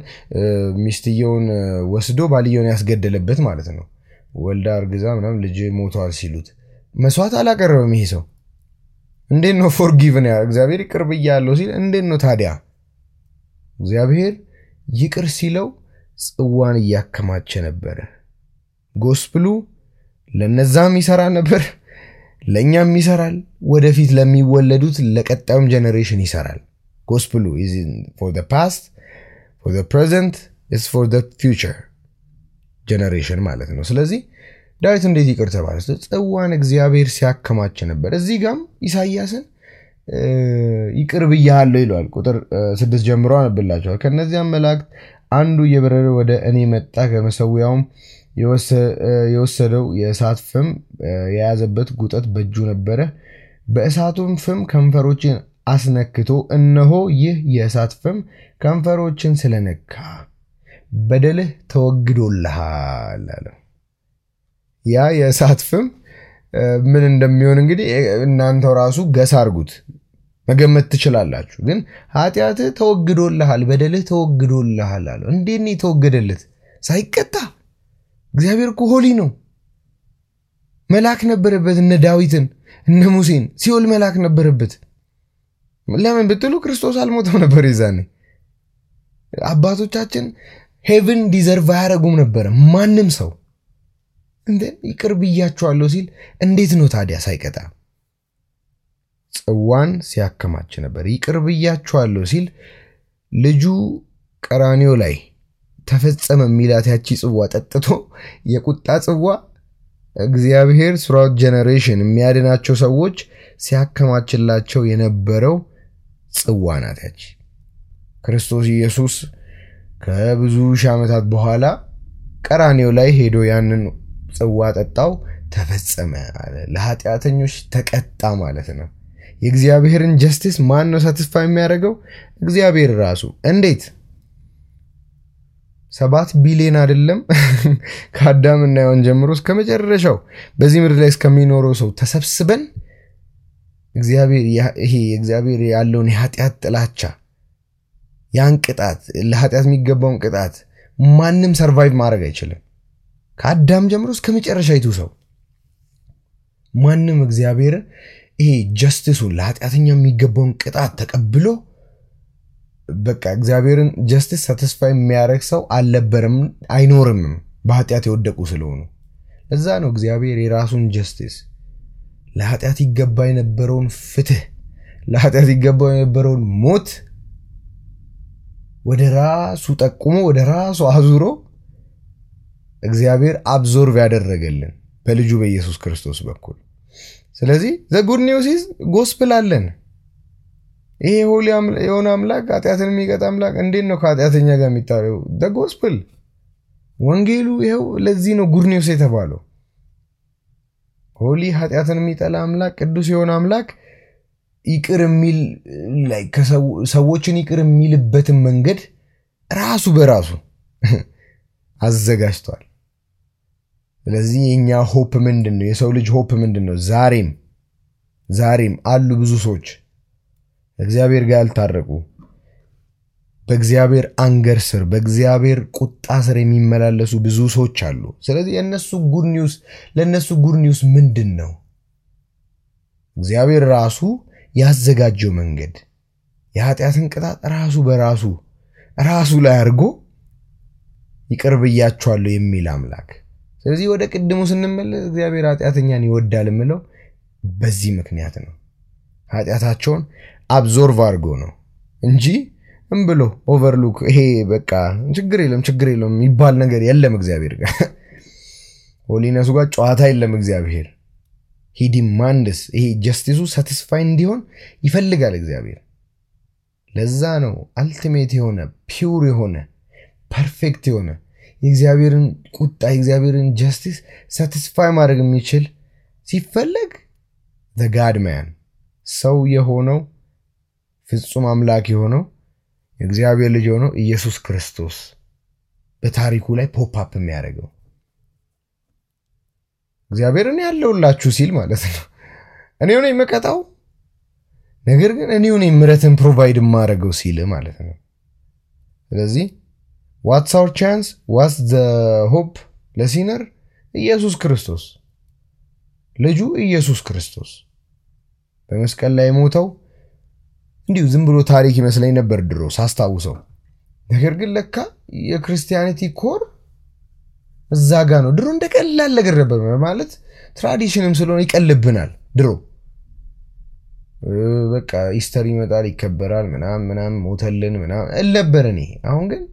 ሚስትየውን ወስዶ ባልየውን ያስገደለበት ማለት ነው ወልዳ አርግዛ ምናምን ልጅ ሞቷል ሲሉት መስዋዕት አላቀረበም ይሄ ሰው እንዴት ነው ፎርጊቭን እግዚአብሔር ይቅር ብያለሁ ሲል እንዴት ነው ታዲያ እግዚአብሔር ይቅር ሲለው ጽዋን ያከማቸ ነበር ጎስፕሉ ለነዛም ይሰራ ነበር ለኛም ይሰራል ወደፊት ለሚወለዱት ለቀጣዩም ጀነሬሽን ይሰራል gospel is for the past for the present is for the future generation ማለት ነው ስለዚህ ዳዊት እንዴት ይቅር ተባለ ጽዋን እግዚአብሔር ሲያከማች ነበር እዚህ ጋም ኢሳይያስን ይቅር ብያለሁ ይላል ቁጥር 6 ጀምሮ አንብላችኋል ከነዚያም መላእክት አንዱ የበረረ ወደ እኔ መጣ ከመሰዊያውም የወሰደው የእሳት ፍም የያዘበት ጉጠት በእጁ ነበረ በእሳቱም ፍም ከንፈሮችን አስነክቶ እነሆ ይህ የእሳት ፍም ከንፈሮችን ስለነካ በደልህ ተወግዶልሃል አለ ያ የእሳት ፍም ምን እንደሚሆን እንግዲህ እናንተው ራሱ ገስ አርጉት መገመት ትችላላችሁ ግን ኃጢአት ተወግዶልሃል በደልህ ተወግዶልሃል አለ እንዴት ነው ተወገደለት ሳይቀጣ እግዚአብሔር እኮ ሆሊ ነው መልአክ ነበረበት እነ ዳዊትን እነ ሙሴን ሲኦል መልአክ ነበረበት ለምን ብትሉ ክርስቶስ አልሞተም ነበር ይዛኔ አባቶቻችን ሄቨን ዲዘርቭ ያረጉም ነበር ማንንም ሰው እንዴ ይቅር ብያችኋለሁ ሲል እንዴት ነው ታዲያ ሳይቀጣ ጽዋን ሲያከማች ነበር ይቅር ብያችኋለሁ ሲል ልጁ ቀራኒዮ ላይ ተፈጸመ ሚላት ያቺ ጽዋ ጠጥቶ የቁጣ ጽዋ እግዚአብሔር ስራው ጀነሬሽን የሚያድናቸው ሰዎች ሲያከማችላቸው የነበረው ጽዋ ናት ያቺ ክርስቶስ ኢየሱስ ከብዙ ሺህ ዓመታት በኋላ ቀራኒዮ ላይ ሄዶ ያንን ጽዋ ጠጣው ተፈጸመ አለ ለኃጢአተኞች ተቀጣ ማለት ነው የእግዚአብሔርን ጀስቲስ ማን ነው ሳቲስፋይ የሚያደርገው እግዚአብሔር ራሱ እንዴት 7 ቢሊዮን አይደለም ከአዳምና ሔዋን ጀምሮ እስከ መጨረሻው በዚህ ምድር ላይ እስከሚኖረው ሰው ተሰብስበን እግዚአብሔር ያለውን የኃጢአት ጥላቻ ያን ቅጣት ለኃጢአት የሚገባውን ቅጣት ማንንም ሰርቫይቭ ማድረግ አይችልም ከአዳም ጀምሮ እስከ መጨረሻው ሰው ማንንም እግዚአብሔር ጀስቲሱን ለኃጢአተኛ የሚገባውን ቅጣት ተቀብሎ በቃ እግዚአብሔርን ጀስቲስ ሳቲስፋይ የሚያደርግ ሰው አልነበረም አይኖርም በኃጢአት የወደቁ ስለሆኑ ለዛ ነው እግዚአብሔር የራሱን ጀስቲስ ለኃጢአት ይገባ የነበረውን ፍትህ ለኃጢአት ይገባ የነበረውን ሞት ወደ ራሱ ጠቁሞ ወደ ራሱ አዙሮ እግዚአብሔር አብዞርቭ ያደረገልን በልጁ በኢየሱስ ክርስቶስ በኩል ስለዚህ the good news is gospel አለን ይሄ ሆሊ የሆነ አምላክ ኃጢአትን የሚቀጣ አምላክ እንዴት ነው ከኃጢአተኛ ጋር የሚታረው the gospel ወንጌሉ ይሄው ለዚህ ነው good news የተባለው ሆሊ ኃጢአትን የሚጠላ አምላክ ቅዱስ የሆነ አምላክ ይቅር የሚል like ሰዎችን ይቅር የሚልበትን መንገድ ራሱ በራሱ አዘጋጅቷል ስለዚህ የኛ ሆፕ ምንድነው የሰው ልጅ ሆፕ ምንድነው ዛሬም አሉ ብዙ ሰዎች እግዚአብሔር ጋር ያልታረቁ በእግዚአብሔር አንገር ስር በእግዚአብሔር ቁጣ ስር የሚመላለሱ ብዙ ሰዎች አሉ ስለዚህ ለነሱ ጉድ ኒውስ ምንድነው እግዚአብሔር ራሱ ያዘጋጀው መንገድ የኃጢአትን ቅጣት ራሱ በራሱ ላይ አርጎ ይቅር ብያችኋለሁ የሚል አምላክ ስለዚህ ወደ ቅድሙ ስንመለስ እግዚአብሔር ኃጢአተኛን ይወዳል ምለው በዚህ ምክንያት ነው ኃጢአታቸውን አብዞርቭ አርጎ ነው እንጂ ብሎ ኦቨርሉክ ይሄ በቃ ችግር የለም ይባል ነገር የለም እግዚአብሔር ጋር ሆሊነሱ ጋር ጨዋታ የለም እግዚአብሔር he demands ይሄ ጀስቲሱ ሳቲስፋይ እንዲሆን ይፈልጋል እግዚአብሔር ለዛ ነው አልቲሜት የሆነ ፒውር የሆነ ፐርፌክት የሆነ የእግዚአብሔርን ቁጣ የእግዚአብሔርን ጀስቲስ ሳቲስፋይ ማድረግ የሚችል ሲፈልግ the God man ሰው የሆነው ፍጹም አምላክ የሆነው የእግዚአብሔር ልጅ የሆነው ኢየሱስ ክርስቶስ በታሪኩ ላይ ፖፕ አፕ የሚያደርገው እግዚአብሔርን ያለውላችሁ ሲል ማለት ነው እኔው ነኝ መቀጣው ነገር ግን እኔው ነኝ ምሕረትን ፕሮቫይድ ማረገው ሲል ማለት ነው ስለዚህ what's our chance what's the hope ለሲነር ኢየሱስ ክርስቶስ ልጁ ኢየሱስ ክርስቶስ በመስቀል ላይ ሞተው እንዲሁ ዝም ብሎ ታሪክ ይመስለኝ ነበር ድሮ ሳስታውሰው ነገር ግን ለካ የክርስቲያኒቲ ኮር እዛ ጋር ነው ድሮ እንደቀላል ነገር ነበር ማለት ትራዲሽንም ስለሆነ ይቀልብናል ድሮ በቃ ኢስተር ይመጣል ይከበራል ምናምን ሞተልን ምናምን እለበረኔ አሁን ግን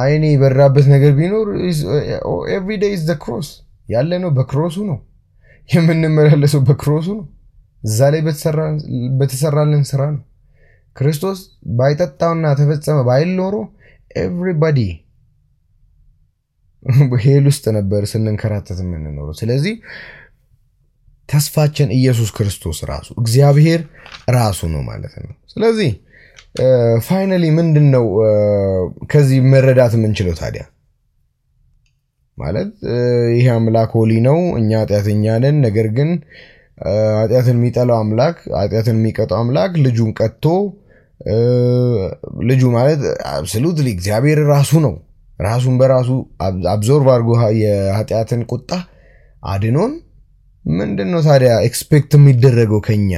አይኔ በራበት ነገር ቢኖር every day is the cross ያለ ነው በክሮሱ ነው የምንመላለሰው በክሮሱ ነው እዛ ላይ በተሰራልን ስራ ነው ክርስቶስ ባይጠጣውና ተፈጸመ ባይል ኖሮ everybody በሄል ውስጥ ነበር ስንንከራተት የምንኖረው ስለዚህ ተስፋችን ኢየሱስ ክርስቶስ ራሱ እግዚአብሔር ራሱ ነው ማለት ነው ስለዚህ ፋይናሊ ምንድነው ከዚህ መረዳት የምንችለው ታዲያ ማለት ይሄ አምላክ ሆሊ ነው እኛ ኃጢአተኛ ነን ነገር ግን ኃጢአትን የሚጠላው አምላክ ኃጢአትን የሚቀጣው አምላክ ልጁን ቀጥቶ ልጁ ማለት አብሶሉትሊ እግዚአብሔር ራሱ ነው ራሱን በራሱ አብዞርቭ አድርጎ የኃጢአትን ቁጣ አድኖን ምንድነው ታዲያ ኤክስፔክት የሚደረገው ከኛ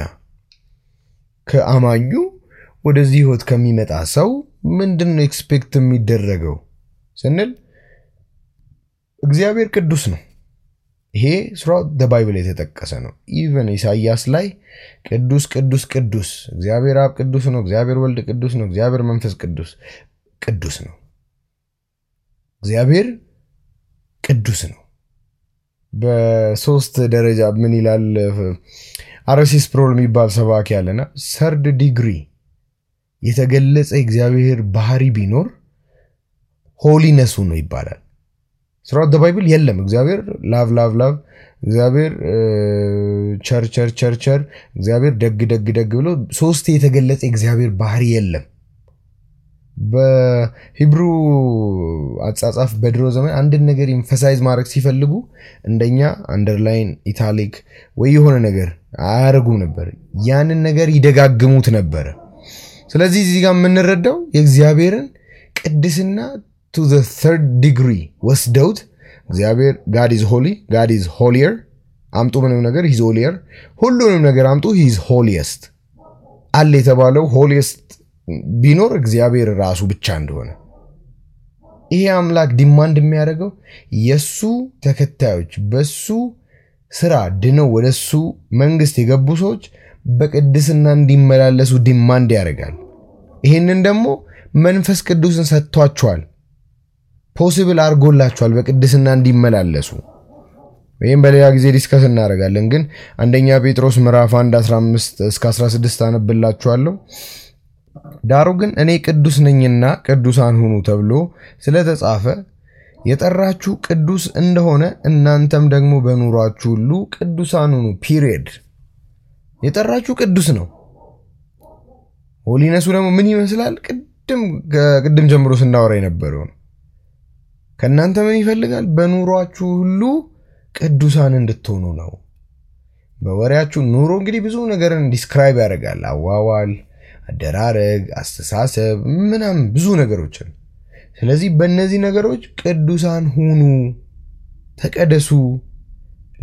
ከአማኙ ወደዚህ ህይወት ከሚመጣ ሰው ምንድነው ኤክስፔክት የሚደረገው ስንል እግዚአብሔር ቅዱስ ነው ይሄ throughout the Bible የተጠቀሰ ነው even ኢሳይያስ ላይ ቅዱስ ቅዱስ ቅዱስ እግዚአብሔር አብ ቅዱስ ነው እግዚአብሔር ወልድ ቅዱስ ነው እግዚአብሔር መንፈስ ቅዱስ ነው እግዚአብሔር ቅዱስ ነው በሶስት ደረጃ ምን ይላል አርሲስ ፕሮል የሚባል ሰባኪ ያለና ሰርድ ዲግሪ የተገለጸ እግዚአብሔር ባህሪ ቢኖር ሆሊነሱ ነው ይባላል throughout the Bible የለም እግዚአብሔር ላቭ እግዚአብሔር ቸር እግዚአብሔር ደግ ብሎ ሶስት የተገለጸ እግዚአብሔር ባህሪ የለም በሂብሩ አጻጻፍ በድሮ ዘመን አንድ ነገር ኢንፈሳይዝ ማድረግ ሲፈልጉ እንደኛ አንደርላይን ኢታሊክ ወይ የሆነ ነገር አያረጉም ነበር ያንን ነገር ይደጋግሙት ነበር ስለዚህ እዚህ ጋር የምንረዳው የእግዚአብሔርን ቅድስና to the third degree ወስደውት እግዚአብሔር God is holy God is holier አምጡ ምንም ነገር he's holier ሁሉንም ነገር አምጡ he is holiest አለ የተባለው holiest ቢኖር እግዚአብሔር ራሱ ብቻ እንደሆነ ይሄ አምላክ ዲማንድ የሚያደርገው የሱ ተከታዮች በሱ ስራ ድነው ወደሱ መንግስት የገቡ ሰዎች በቅድስና እንዲመላለሱ ዲማንድ ያደርጋል ይሄንን ደግሞ መንፈስ ቅዱስን ሰጥቷቸዋል ፖሲብል አርጎላቸዋል በቅድስና እንዲመላለሱ ወይም በሌላ ጊዜ ዲስከስ እናደርጋለን ግን አንደኛ ጴጥሮስ ምዕራፍ 1:15 እስከ 16 አነብላችኋለሁ ዳሩ ግን እኔ ቅዱስ ነኝና ቅዱሳን ሁኑ ተብሎ ስለተጻፈ የጠራችሁ ቅዱስ እንደሆነ እናንተም ደግሞ በኑሯችሁ ሁሉ ቅዱሳን ሁኑ ፒሪየድ የጠራችሁ ቅዱስ ነው ሆሊነሱ ደግሞ ምን ይመስላል ቅድም ጀምሮ ስናወራ የነበረው ከናንተ ምን ይፈልጋል በኑሯችሁ ሁሉ ቅዱሳን እንድትሆኑ ነው በወሬያችሁ ኑሮ እንግዲህ ብዙ ነገርን ዲስክራይብ ያደርጋል አዋዋል አደራረግ አስተሳሰብ ምናም ብዙ ነገሮችን ስለዚህ በእነዚህ ነገሮች ቅዱሳን ሁኑ ተቀደሱ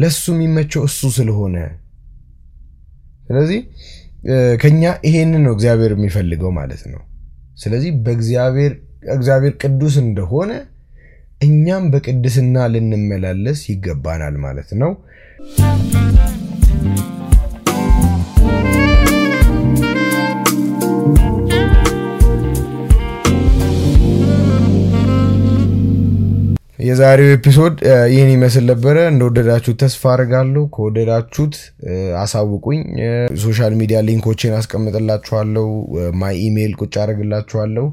ለሱ የሚመቸው እሱ ስለሆነ ስለዚህ ከኛ ይሄንን ነው እግዚአብሔር የሚፈልገው ማለት ነው ስለዚህ እግዚአብሔር ቅዱስ እንደሆነ እኛም በቅድስና ልንመላለስ ይገባናል ማለት ነው የዛሬው ኤፒሶድ ይሄን ይመስል ነበር እንደወደዳችሁ ተስፋ አደርጋለሁ ከወደዳችሁት አሳውቁኝ ሶሻል ሚዲያ ሊንኮችን አስቀምጥላችኋለሁ ማይ ኢሜል ቁጭ አድርግላችኋለሁ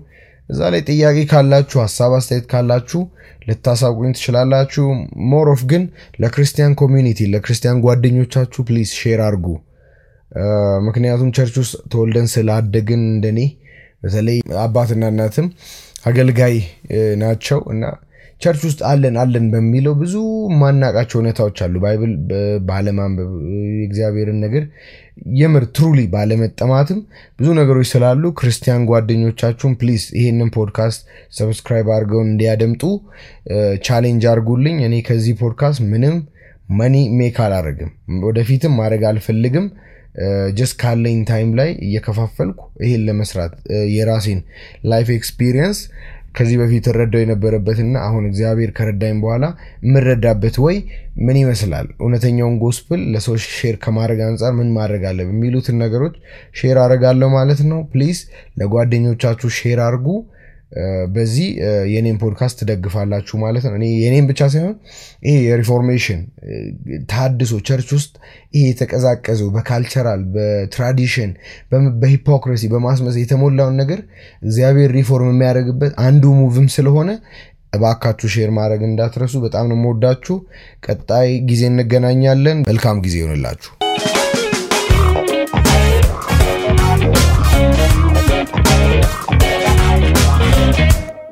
እዛ ላይ ጥያቄ ካላችሁ ሐሳብ አስተያየት ካላችሁ ልታሳውቁኝ ትችላላችሁ ሞር ኦፍ ግን ለክርስቲያን ኮሚኒቲ ለክርስቲያን ጓደኞቻችሁ ፕሊዝ ሼር አድርጉ ምክንያቱም ቸርች ውስጥ ተወልደን ስላደግን እንደኔ በተለይ አባትና እናትም አገልጋይ ናቸው እና ቸርች ውስጥ አለን በሚለው ብዙ ማናቃቸው ሁኔታዎች አሉ ባይብል ባለማንበብ እግዚአብሔርን ነገር የምር ትሩሊ ባለመጠማትም ብዙ ነገሮች ስላሉ ክርስቲያን ጓደኞቻችሁን ፕሊዝ ይሄንን ፖድካስት ሰብስክራይብ አድርገው እንዲያደምጡ ቻሌንጅ አድርጉልኝ እኔ ከዚህ ፖድካስት ምንም መኒ ሜክ አላረግም ወደፊትም ማድረግ አልፈልግም just ካለኝ ታይም ላይ እየከፋፈልኩ ይሄን ለመስራት የራሴን ላይፍ ኤክስፒሪየንስ ከዚህ በፊት ረዳው የነበረበትና አሁን እግዚአብሔር ከረዳኝ በኋላ ምረዳበት ወይ ምን ይመስላል እውነተኛውን ጎስፕል ለሰው ሼር ከማድረግ አንፃር ምን ማድረግ አለብኝ የሚሉትን ነገሮች ሼር አደርጋለሁ ማለት ነው ፕሊዝ ለጓደኞቻችሁ ሼር አድርጉ በዚህ የኔን ፖድካስት ደግፋላችሁ ማለት ነው እኔ የኔን ብቻ ሳይሆን ይሄ የሪፎርሜሽን ታድሶ ቸርች ውስጥ ይሄ የተቀዛቀዘው በካልቸራል በትራዲሽን በሂፖክሪሲ በማስመሰል የተሞላውን ነገር እግዚአብሔር ሪፎርም የሚያደርግበት አንዱ ሙቭም ስለሆነ እባካችሁ ሼር ማድረግ እንዳትረሱ በጣም ነው የምወዳችሁ ቀጣይ ጊዜ እንገናኛለን መልካም ጊዜ ይሁንላችሁ